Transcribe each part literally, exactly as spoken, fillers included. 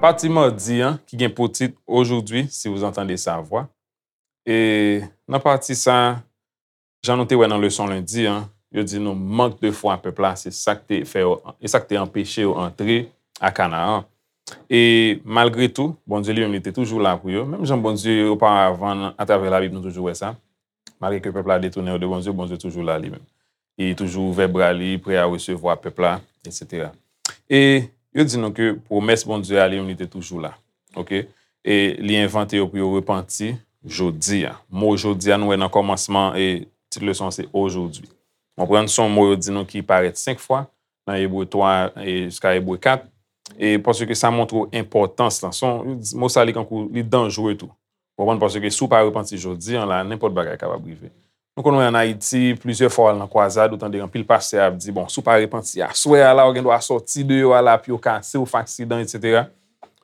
Pati madi an, ki gen pou tit Aujourd'hui, si vous entendez sa voix. E nan pati sa, jan nou te wè nan leson lendi an, yo di nou mank de fwa pèp la, se sa k te fè yo, e sa k te anpeche yo antre a Kanaan. E malgre tou, Bondye li menm li te toujou la pou yo. Menm jan Bondye oparavan, atravè Labib, nou toujou wè sa. Malgre ke pèp la detounen yo de Bondye, Bondye toujou la li menm. Li toujou ouvè bra li, prè a resevwa pèp la, etsetera. E yo di nou ke pwomès Bondye a li menm li te toujou la. Oke? E li envante yo pou yo repanti jodi a. Mo jodi a nou wè nan kòmansman e tit leson an se aujourd'hui. Konprann, se yon mo yo di nou ki parèt senk fwa nan Ebre twa e jiska Ebre kat. E paske sa montre w enpòtans lan. Se yon mo sa li kankou li danjre tou. Konprann, paske si w pa repanti jodi an la, nenpòt bagay kapab rive. Nou konn wè ann Ayiti, plizyè fwa w al nan kwazad, ou tande anpil pastè ap di, bon, si w pa repanti aswè a la, ou gen dwa sòti deyò a la, pye w kase, w fè aksidan, etsetera.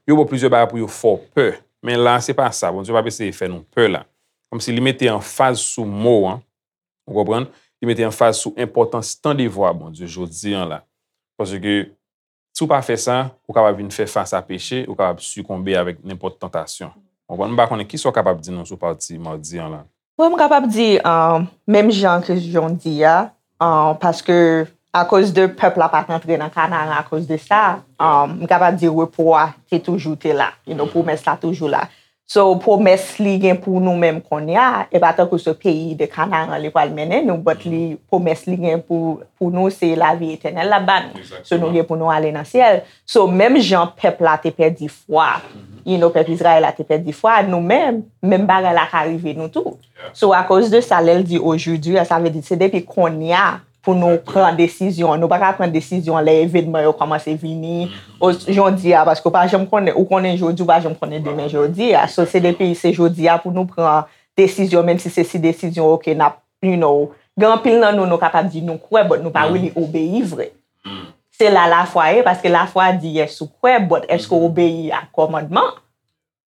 Yo ba w plizyè bagay pou yo fè w pè. Men la, se pa sa. Bondye p ap eseye fè nou pè la. Kòmsi li mete anfaz sou mo an, ou konprann? Li mete anfaz sou enpòtans tande vwa Bondye jodi an la. Paske si w pa fè sa, ou kapab vin fè fas a peche, ou kapab sikonbe avèk nenpòt tantasyon. Ou konprann? M pa konnen kisa w kapab di nou sou pati madi an la. Bon, m kapab di, um, menm jan ke jan w di a, um, paske akoz de pèp la pa t antre nan Kanaran akoz de sa, um, m kapab di repo a te toujou te la. You know, pwomès la toujou la. So, pwomès li gen pou nou menm kounye a, e pa tankou se peyi de Kanaran li pral mennen nou, but li, pwomès li gen pou, pou nou, se lavi etènèl l ap ba nou. So, nou gen pou nou ale nan syèl. So, menm jan pèp la te pèdi fwa, you know, pèp Izrayèl la te pèdi fwa, nou menm, menm bagay la ka rive nou tou. So, akoz de sa, lè l di aujourd'hui, sa vle di se depi kounye a pou nou pran desizyon. Nou pa ka pran desizyon lè evènman yo kòmanse vini. O, jodi a, paske ou pa janm konnen, ou konnen jodi, ou pa janm konnen demen jodi a. So, se depi se jodi a pou nou pran desizyon, menm si se si desizyon, oke, n ap, you know, gen anpil nan nou, nou kapab di nou kwè, but nou pa really obeyi vre. Se la lafwa ye, paske lafwa di yes ou kwè, but èske w obeyi a kòmandman?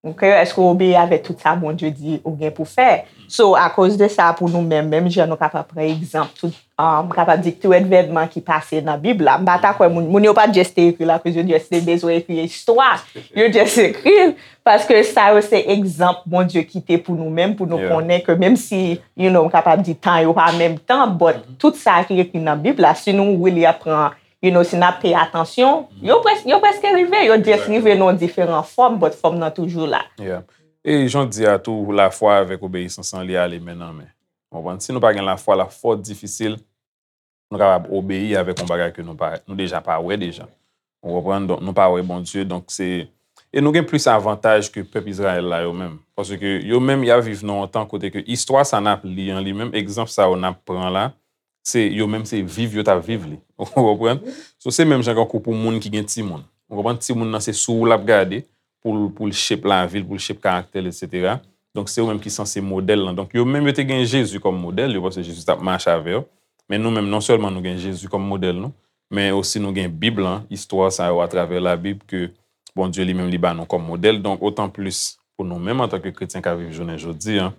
Ok, èske w obeyi avèk tout sa Bondye di ou gen pou fè? So, akoz de sa, pou nou menm, menm jan nou kapab pran egzanp, tout, um, kapab di tout evènman ki pase nan Bib la. M pa ta kwè moun, moun yo pa just te ekri l akoz yo just te bezwen ekri istwa. Yo just ekri l paske sa yo se egzanp Bondye kite pou nou menm, pou nou konnen ke menm si, you know, m kapab di tan yo pa menm tan, but tout sa ki ekri nan Bib la, si nou really ap pran, you know, si n ap peye atansyon, yo près-, yo prèske rive, yo just rive nan yon diferan fòm, but fòm nan toujou la. Yeah. E jan w di a tou, lafwa avèk obeyisans lan, li ale men nan men. Ou konprann? Si nou pa gen lafwa, l ap fò difisil nou kapab obeyi avèk yon bagay ke nou pa, nou deja pa wè deja. Ou konprann? Donk, nou pa wè Bondye, donk se, e nou gen plis avantaj ke pèp Izrayèl la yo menm. Paske yo menm, y ap viv nan yon tan kote ke istwa sa n ap li an li menm, egzanp sa yo n ap pran la, se yo menm se viv yo t ap viv li. Ou konprann? So, se menm jan kankou pou moun ki gen timoun. Ou konprann? Timoun nan se sou ou l ap gade pou l, pou l shape lavi l, pou l shape karaktè l, etsetera. Donk, se yo menm ki sanse modèl lan. Donk, yo menm yo te gen Jezi kòm modèl yo, paske Jezi t ap mache avè yo. Men nou menm, non sèlman nou gen Jezi kòm modèl nou, men osi nou gen Bib lan, istwa sa yo atravè Labib ke Bondye li menm li ba nou kòm modèl. Donk, otan plis pou nou menm antanke kretyen k ap viv jounen jodi a,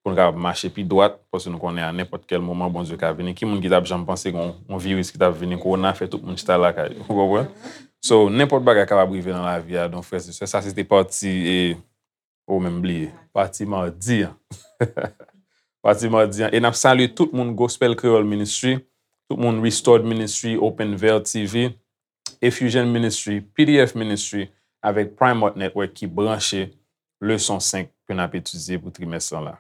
pou nou kapab mache pi dwat, paske nou konnen a nenpòt kèl moman Bondye ka vini. Ki moun ki t ap janm panse gen yon, yon viris ki t ap vini, kowona, fè tout moun chita lakay yo, ou konprann? So, nenpòt bagay kapab rive nan lavi a, donk, frè e sè, sa se te pati, e, ou menm bliye, pati madi an. Pati madi an. E n ap salye tout moun Gospel Creole Ministry, tout moun Restored Ministry, Open Veil T V, Effusion Ministry, P D F Ministry, avèk Prime Art Network ki branche leson senk ke n ap etidye pou trimès lan la.